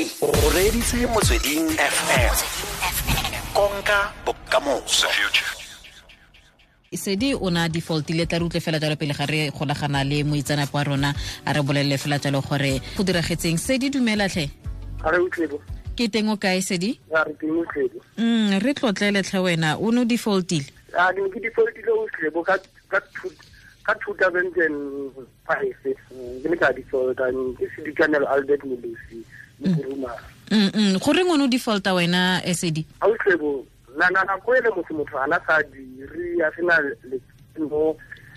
O reditse Motsweding FM. Konka bokamoso. Sedi o na defaultile, tla re utlwe fela jalo pele ga re golagana le moitseanape wa rona a re bolelele fela jalo gore go diragetseng. Sedi, dumela tlhe. Ga re utlwebo. Ke teng, o kae, Sedi? Ga re teng, utlwebo. Re tlotlele tlhe, wena o ne o defaultile. A ke ne ke defaultile, utlwebo, ka 2005 ke ne ka defaulta. Ke Sedikanelo Albert Molusi Mokurumara. Goreng o ne o defaulta wena, Sedi? A utlwebo, na nako ele motho ana sa dire, a sena letseno,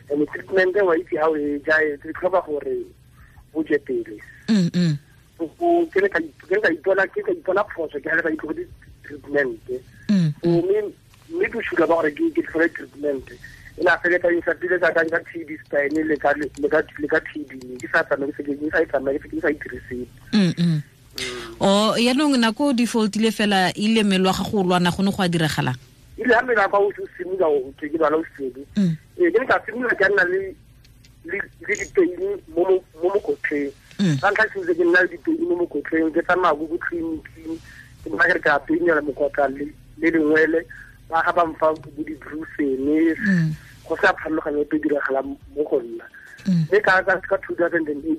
and treatment wa itse ha o e ja, e tlhoka gore o je pele. Ke ne ka ipona phoso, ke ha le ka itlogetse treatment. So mme bosula ba gore ke tlhole treatment e na feletsa e sa pile ka ka TB spine le ka TB ke sa tsamaye, ke sa e tsamaye, ke sa itire sepe. O yaanong nako o defaultile fela, ile mmele wa gago o lwana, go ne go a diragalang? Ile ha mmele wa ka o simolola o ke lwala o sedi. Ee, ke ne ka simolola ke nna le dipeini mo mokotleng. Ka ntlha simolotse ke nna le dipeini mo mokotleng, ke tsamaya ko tleliniking, ke bona ke re ke a peinela mokotla le lengwele, ba ga ba mfa bo di-Brufen, go sa pharologanyo epe diragalang mo go nna. Mme ka 2008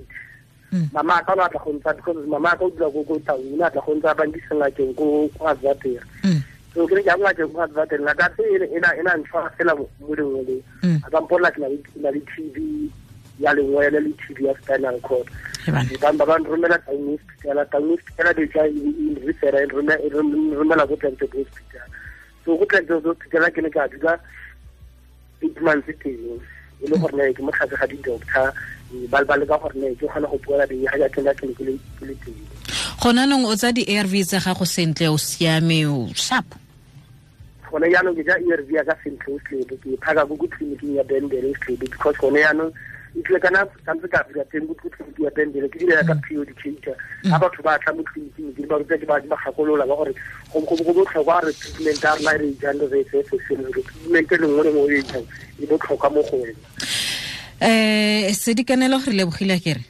mama ka o ne a tla go ntsha, because mama ka o dula ko Taung, o ne a tla go ntsha, ba nkisa ngakeng ko Advater. So ke ne ke ya ngakeng ko Advater, ngaka tse e na ntshwara fela mo lengweleng. A ka mpolela ke na le TB ya lengwele le TB ya spinal cord. Ba nromela Taung Hospital. Taung Hospital be tla e refera, e nromela ko Klerksdorp Hospital. So ko Klerksdorp Hospital ke ne ka dula 8 months teng, e le gore ne ke mo tlase ga di-doctor, ba leka gore ne ke kgone go poela ga jaaka ke ne ke le teng. Gona nong o tsa di-ARV tsa gago sentle, o siame, o sharp? Gone jaanong ke ja ARV ya ka sentle, o slebo ke phaka ko tleliniking ya Bendele, o slebo, because gone jaanong e tlile kana santse ka dula teng ko tleliniking ya Bendele, ke dira ka pre-educator. Ga batho ba tla mo tleliniking, ke ba ruta, ke ba gakolola ba gore go botlhokwa re treatment ya rona e re e jang re e tseye seseng, treatment e lengwe le nngwe e jang e botlhokwa mo go wena. Sedikanelo, re lebogile kere.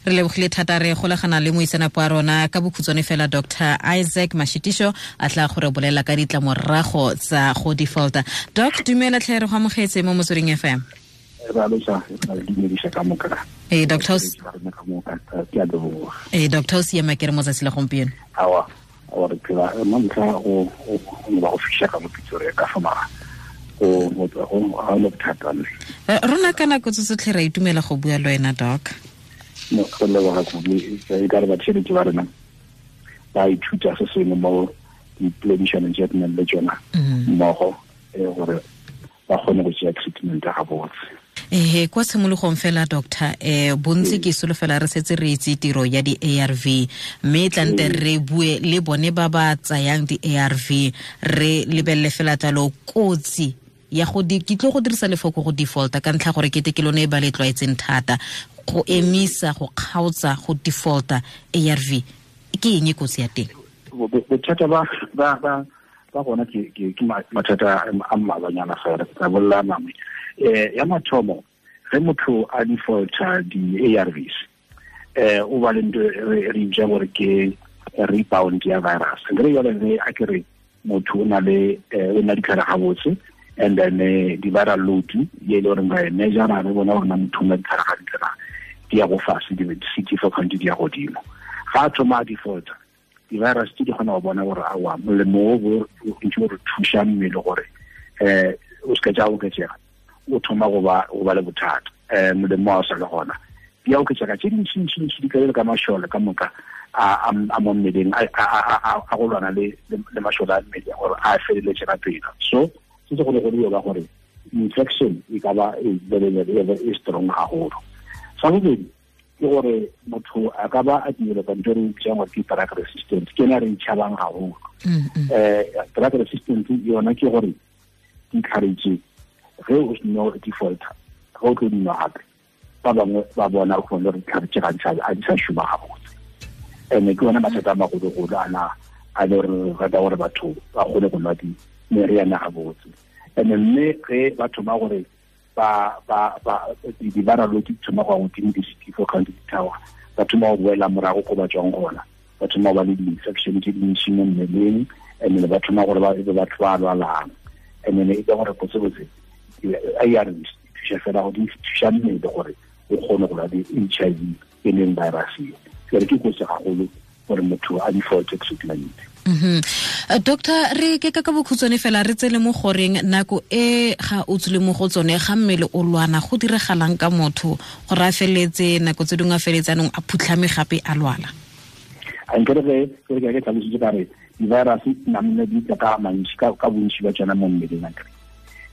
Re lebogile thata. Re golagana le moitseanape wa rona ka bokhutswane fela, Dr Isaac Mashitisho, a tla gore bolela ka ditlamorago tsa go defaulta. Doc, dumela tlhe, re go amogetse mo Motsweding FM. Ee, doctor. Ee, doctor, o siama ke re mo tsatsi la gompieno? Awa, awa, re phela mo ntlha go ba go fiša ka mo Pretoria ka fa mara go ga le bothata mme. Rona ka nako tse tsotlhe ra itumela go bua le wena, doc. No, go leboga kudu. E ka re batšheletši ba rena ba ithuta se sengwe mo dipoledišanong tše re nang le tsona mmogo, gore ba kgone go tšea treatment ga botse. Ehe, kwa tshimologong fela, doctor, bontsi ke solofela re setse re itse tiro ya di-ARV, mme tlante re bue le bone ba ba tsayang di-ARV, re lebelele fela jalo kotsi ya go di ke tlo go dirisa lefoko go defaulta ka ntlha gore kete ke lone e ba le tlwaetseng thata. Go emisa, go kgaotsa, go defaulta ARV, ke eng e kotsi ya teng? Bothata ba gona ke mathata a mmalwanyana fela, ke tla bolela mangwe. Ya mathomo, ge motho a defaulta di-ARVs, o ba le ntho re bitsang gore ke rebound ya virus. Nkere jale ge a ke re motho o na le o na ditlhare gabotse, and then di-viral load ye e le goreng ra e measure, re bona gore na motho o na ditlhare gantle na, di ya go fase, di-CD4 count di ya godimo. Ga a thoma a defaulta, di-virus tse di kgona go bona gore aowa, molemo o bo ntse o re thuša mmele gore o se ka tša oketsega, o thoma go ba le bothata, molemo wa o sa le gona, di a oketsega tse dintšintšintši, di ka ka mašole ka moka a mo mmeleng a go lwana le mašole a mmele gore a feleletse ka pela. So se se golo-golo ba gore infection e ka ba e very very e strong haholo. Sa bobedi ke gore motho a ka ba a developa ntho e re bitsang gore ke drug resistant, ke ena re itšhabang haholo. Drug resistant yona ke gore ditlhare tse ge o seno defaulter, ge o tlo dinwa gape, ba bangwe ba bona go le ditlhare tse gantsi a di sa šoma gabotse. And ke yona mathata a magologolo ana a le gore rata gore batho ba kgone go nwa di meriana gabotse. And mme ge ba thoma gore ba ba ba ba di viral load di thoma go godimo di CD4 count di theoga, ba thoma go boela morago ko ba tswang gona, ba thoma go ba le di-infection tse dintši mo mmeleng, and then ba thoma gore ba be batho ba lwalang. And then e ka gore botsebotse ARVs di thuša fela go di thuša mmele gore o kgone go lwa le HIV e leng virus e. Jwale ke kotsi gagolo gore motho a default treatment. Doctor, re ke ka bokhutshwane fela re tsele mo goreng nako e ga o tsile mo go tsone ga mmele o lwana go diregalang ka motho gore a feletse nako tse dingwe a feletse anong a phutlhame gape a lwala? A nkere ge ke tlhalositse ka re di-virus namile di tla ka mantši ka bontši ba tsona mo mmeleng akere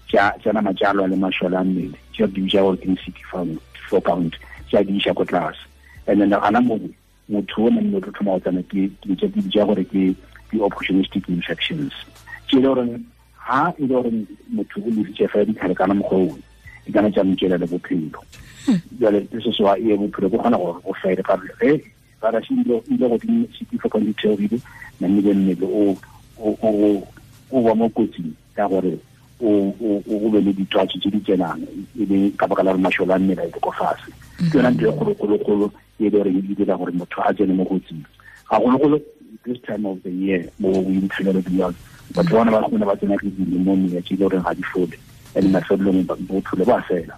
tša nama tša lwa le mašole a mmele tša di bitša gore ke CD4 count tša di iša ko tlase. And then gana mo motho o namile o tlo thoma go tsena ke tša di bitša gore ke di-opportunistic infections tše e le goreng ha e le gore motho o lesitše fela ditlhare kana mokgwa owe di kana tša motšela le bophelo. Jale se se wa e bophelo bo kgona gore go fele ka ge virus e ile godimo CD4 count di theogile, namile mmele o ba mo kotsing ka gore o be le ditwatši tse di tsenang e le ka baka la gore mašole a mmele a ile ko fase. Ke yona ntho e kgolokgolokgolo e le gore e dira gore motho a tsene mo kotsing gagologolo this time of the year mo winter le beyond. Batho bona ba kgona ba tsena ke di-pneumonia tse e le goreng ga di fole, and mafelelong bophelo ba fela.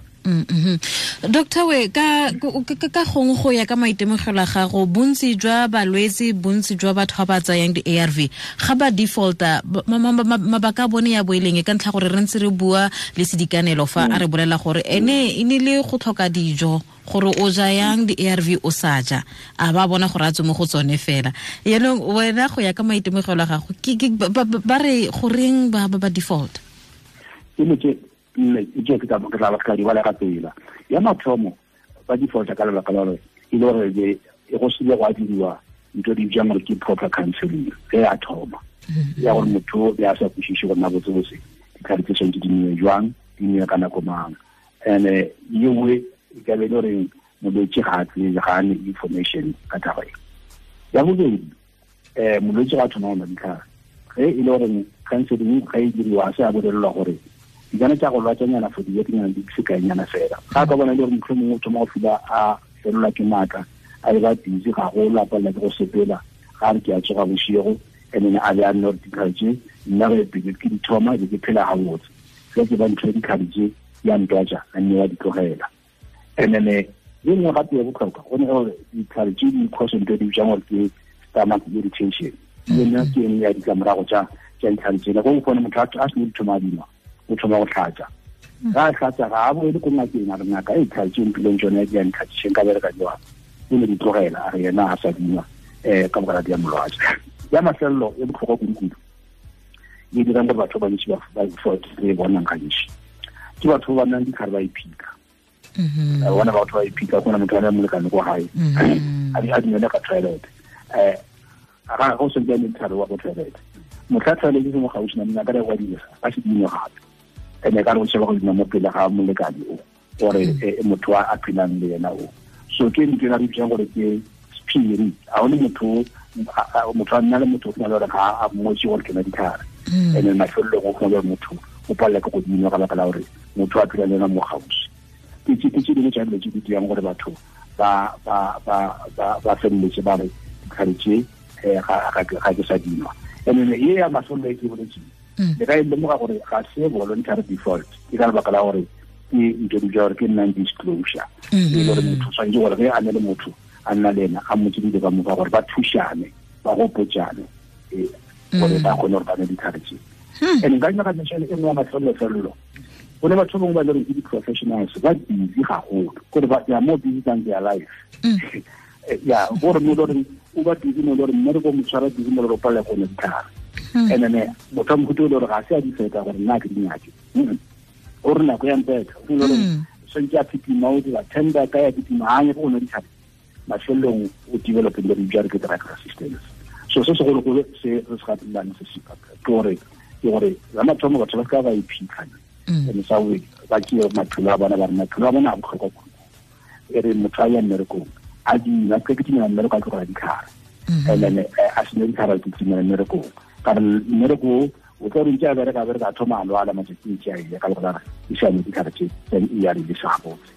Doctor, we ka gongwe go ya ka maitemogelo a gago, bontsi jwa balwetse, bontsi jwa batho ba ba tsayang di-ARV ga ba defaulta, mabaka a bone ya boeleng ka ntlha gore re ntse re bua le sedikanelo fa a re bolela gore ene e ne le go tlhoka dijo gore o ja yang di-ARV o sa ja, a ba bona gore a tswe mo go tsone fela. Yaanong wena go ya ka maitemogelo a gago, ba re goreng ba ba default? Ke tla ba ka di bala ka pela. Ya mathomo ba defaulta ka lebaka la gore e le gore e go sile go diriwa ntho di bjang gore ke proper counseling ge a thoma ya gore motho ya sa kwešiše gore na botsebotse ditlhare tse tshwanetse di nwe jwang, di nwe ka nako mang. And ye nngwe e ka be e le gore molwetse ga a tsebe, ga a ne information ka taba e. Ya bobedi, molwetse ga a thoma go nwa ditlhare ge e le gore counseling ga e diriwa a se a bolelelwa gore di kana tša go lwatšanyana for dibekenyana di sekaenyana fela. Ga ka bona e le gore motlho mongwe o thoma go fila a felelwa ke maatla, a e ba busy gagolo, a palela ke go sepela, ga re ke a tsoga bošego, and then a be a nne gore ditlhare tše nna ge pele ke di thoma be ke phela gabotse, ge ke ba ntho ya ditlhare tše ya ntwatša a nne wa di tlogela. And then ye nngwe gape ya botlhokwa go ne gore ditlhare tše di cause ntho e di bitsang gore ke stomach irritation, yone ke engwe ya ditlamorago tša ditlhare tsela. Go kgone motho a sene di thoma a dinwa, o thoma go tlhatsa, ga a tlhatsa ga a boele ko ngakeng a re ngaka e ditlhare tse mphileng tsone di a ntlhatsiseng ka bereka jwang, o ne di tlogela a re yena a sa dinwa ka baka la di ya molwatse. Ya mafelelo e botlhokwa kudu-kudu e dirang gore batho ba bantši ba re bonang gantši ke batho ba ba nang ditlhare ba iphitlha. Bona batho ba iphitlha, gona motho a le molekane ko gae a dinele ka toilet, ga go sentse a ne ditlhare wa ko toilet, motlha toilet e se mo gaufi nameng a ka re wa dira a se dinwe gape, ene ka re o sheba go dina mo pele ga molekane o gore motho a phelang le yena o. So ke ntho e re bitsang gore ke sephiri, ga one motho a nna le motho o kgona le gore ga a mmotse gore ke na ditlhare, and then mafelelong o kgona le gore motho o palela ke go dinwa ka baka la gore motho a phela le yena mo gaufi. Ke tse dingwe tša dilo tse di dirang gore batho ba feleletse ba re ditlhare tše ga ke sa dinwa. And then ye ya mafelelo e ke boletseng le ka e lemoga gore ga se voluntary default, ke ka lebaka la gore ke ntho di gore ke non-disclosure, e le gore motho tshwanetse gore ge a ne le motho a nna le ena a mmotse dilo ka moka gore ba thušane, ba gopotšane gore ba kgone gore ba ne ditlhare tše. And nka nyaka mention e nngwe ya mafelelo-felelo, go ne batho bangwe ba le gore ke di-professionals ba busy gagolo, kore they are more busy than their life. Ya gore mo le gore o ba busy mo le gore mmereko mo tshwara busy mo le gore o palela go nwa ditlhare. And then motho a mohuta o le gore ga se a di feta gore nna ke di nyake, o re nako ya mpetha, o le gore tshwanetse a phitima, o dira tender ka ya phitima, ga a nyake go nwa ditlhare, mafelelong o developeng le re bitsa re ke drug resistance. So se segologolo se re se gatelang se se ke gore la mathomo batho ba ka ba iphitlha, and sa we ba ke maphelo a bona ba re maphelo a bona a botlhokwa kudu. E re motho a ya mmerekong a dina ke ke dinela mmereko a tlogela ditlhare, and then a sene ditlhare ke timela mmerekong, ka re mmereko O tla re ntse a bereka a thoma a lwala matsatsing tse a ile ka lebaka la e sa ne ditlhare tse tsa di-ARV sa gabotse.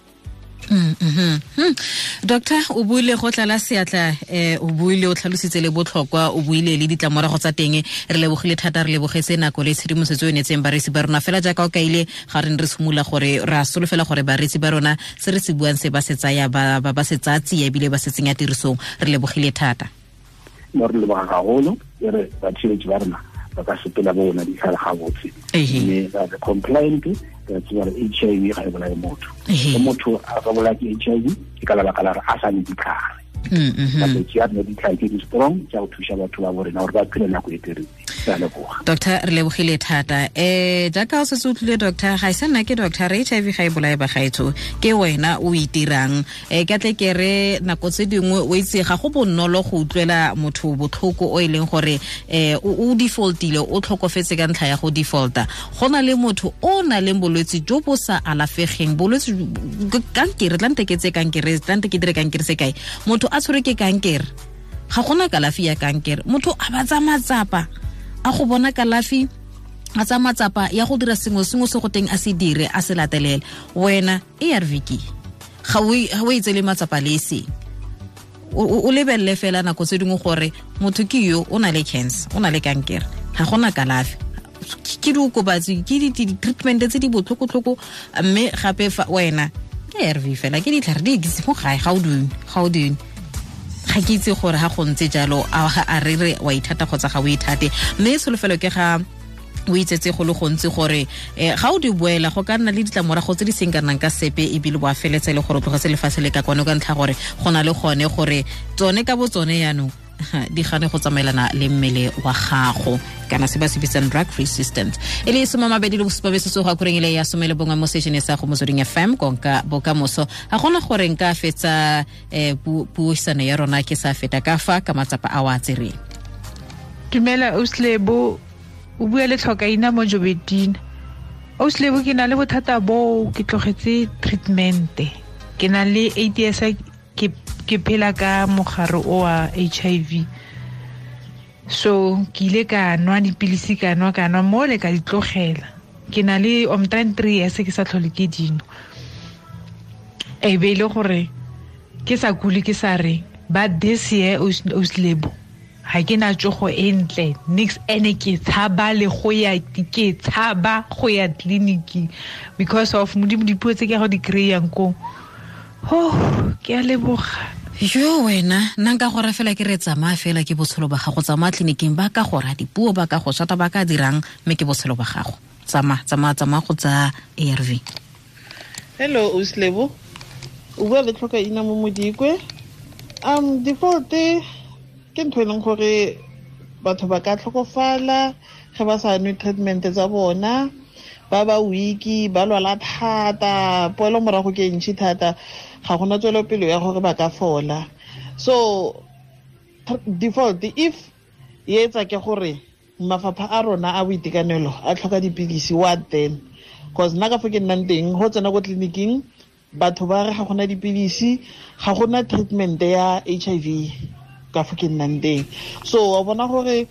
Doctor, o buile go tlala seatla, o buile o tlhalositse le botlhokwa, o buile le ditlamorago tsa teng. Re lebogile thata, re lebogetse nako le tshedimosetso e neetseng bareetsi ba rona. Fela jaaka o kaile ga re ne re simolola gore re a solofela gore bareetsi ba rona se re se buang se ba se tsaya ba se tsaya tsia ebile ba se tsenya tirisong. Re lebogile thata. Mo re leboga gagolo, e re batheletši ba rona ba ka sepela bona ditlhare gabotse, mme ba be compliant. Re tseba gore HIV ga e bolaye motho. Ge motho a ka bolaya ke HIV ke ka lebaka la gore a sa ne ditlhare. Malwetse a rena ditlhare tse di strong tsa go thusa batho ba bo rena gore ba phele nako e telele. Ke a leboga. Doctor, re lebogile thata. Jaaka o setse o tlile, doctor, ga e sa nna ke doctor, re HIV ga e bolaye bagaetsho, ke wena o itirang. Ke tle ke re nako tse dingwe o itse ga go bonolo go utlwela motho botlhoko o e leng gore o defaultile, o tlhokofetse ka ntlha ya go defaulta. Go na le motho o na leng bolwetse jo bo sa alafegeng, bolwetse kankere, tlante ke tse kankere, tlante ke dire kankere sekai, motho a tshwerwe ke kankere, ga gona kalafi ya kankere, motho a ba tsaya matsapa a go bona kalafi, a tsaya matsapa ya go dira sengwe sengwe se go teng a se dire, a se latelele. Wena ARV ke ga o itsele matsapa le eseng, o lebelele fela nako tse dingwe gore motho ke yo o na le cancer, o na le kankere, ga gona kalafi, ke diokobatsi, ke di-treatment tse di botlhokotlhoko, mme gape fa wena ke ARV fela, ke ditlhare di ekise mo gae, ga o dinwe. Ga ke itse gore ga go ntse jalo a re re wa ithata kgotsa ga o ithate, mme tsholofelo ke ga o itsetse go le gontsi gore ga o di boela go ka nna le ditlamorago tse di seng kanang ka sepe, ebile bo a feletse le gore o tlogetse lefatshe le ka kwano ka ntlha gore go na le gone gore tsone ka bo tsone jaanong di gane go tsamaelana le mmele wa gago, kana se ba se bitsang drug resistant. E le 27 metsotso go akoreng ile ya 11 mo station sa go Motsweding FM, konka bokamoso. Ga gona gore nka fetsa puisano ya rona ke sa feta ka fa ka matsapa a wa tsereng. Dumela Auslebo, o bua le Tlhokaina mo Jobetina. Auslebo, ke na le bothata bo, ke tlogetse treatment, ke na le AIDS, ke phela ka mogare o wa HIV. So ke ile ka nwa dipilisi, ka nwa mo le ka di tlogela. Ke na le omtrent 3 years ke sa tlhole ke dino. E be ile gore ke sa kule ke sa reng, but this year Auslebo ga ke na tsogo e ntle nix, ene ke tshaba le go ya, ke tshaba go ya tleliniking because of modimo dipuo tse ke go di kry-ang koo. Oh, ke a leboga. Yo wena, nna nka gore fela ke re tsamaya fela ke botshelo ba gago, tsamaya tleliniking, ba ka go ra dipuo, ba ka go shata, ba ka dirang, mme ke botshelo ba gago. Tsamaya go tsaya ARV. Hello Auslebo, o bua le Tlhokaina mo Modikwe. Default ke ntho e leng gore batho ba ka tlhokofala ge ba sa nwe treatment tsa bona, ba ba weak, ba lwala thata, poelo morago ke ntšhi thata, ga gona tswelopele ya gore ba ka fola. So default if e etsa ke gore mafapha a rona a boitekanelo a tlhoka dipilisi, what then? Cause nna ka fo ke nnang teng, go tsena ko tleliniking batho ba re ga gona dipilisi, ga gona treatment ya HIV ka fo ke nnang teng. So wa bona gore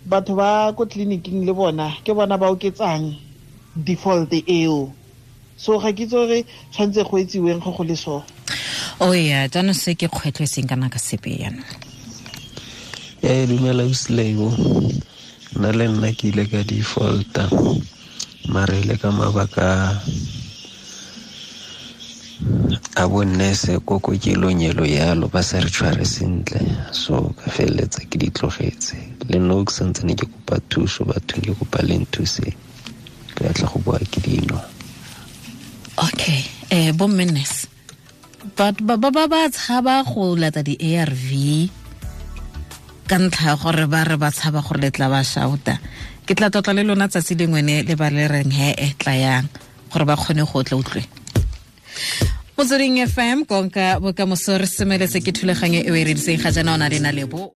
batho ba ko tleliniking le bona ke bona ba oketsang default eo. So ga ke itse gore tshwanetse go etsiweng go le so. Oh yeah, jaanong se ke kgwetlho e seng kana ka sepe jaanong. Dumela Auslebo, nna le nna ke ile ka defaulta, mare ile ka mabaka a bonnese ko kokelong elo yalo, ba sa re tshware sentle, so ka feleletsa ke di tlogetse. Le nna ke santsane ke kopa thuso bathong, ke kopa le nthuse, ke batla go boa ke dino. Okay, bo nurse ba ba tshaba go lata di ARV ka ntlha gore ba re ba tshaba gore le tla ba shouta. Ke tla tlotla le lona tsatsi lengwe ne le ba le reng he e tla yang gore ba kgone go tla utlwe. Motsweding FM konka bokamoso re semeletse ke thulaganyo e o e rediseng ga jaana o na le na lebo.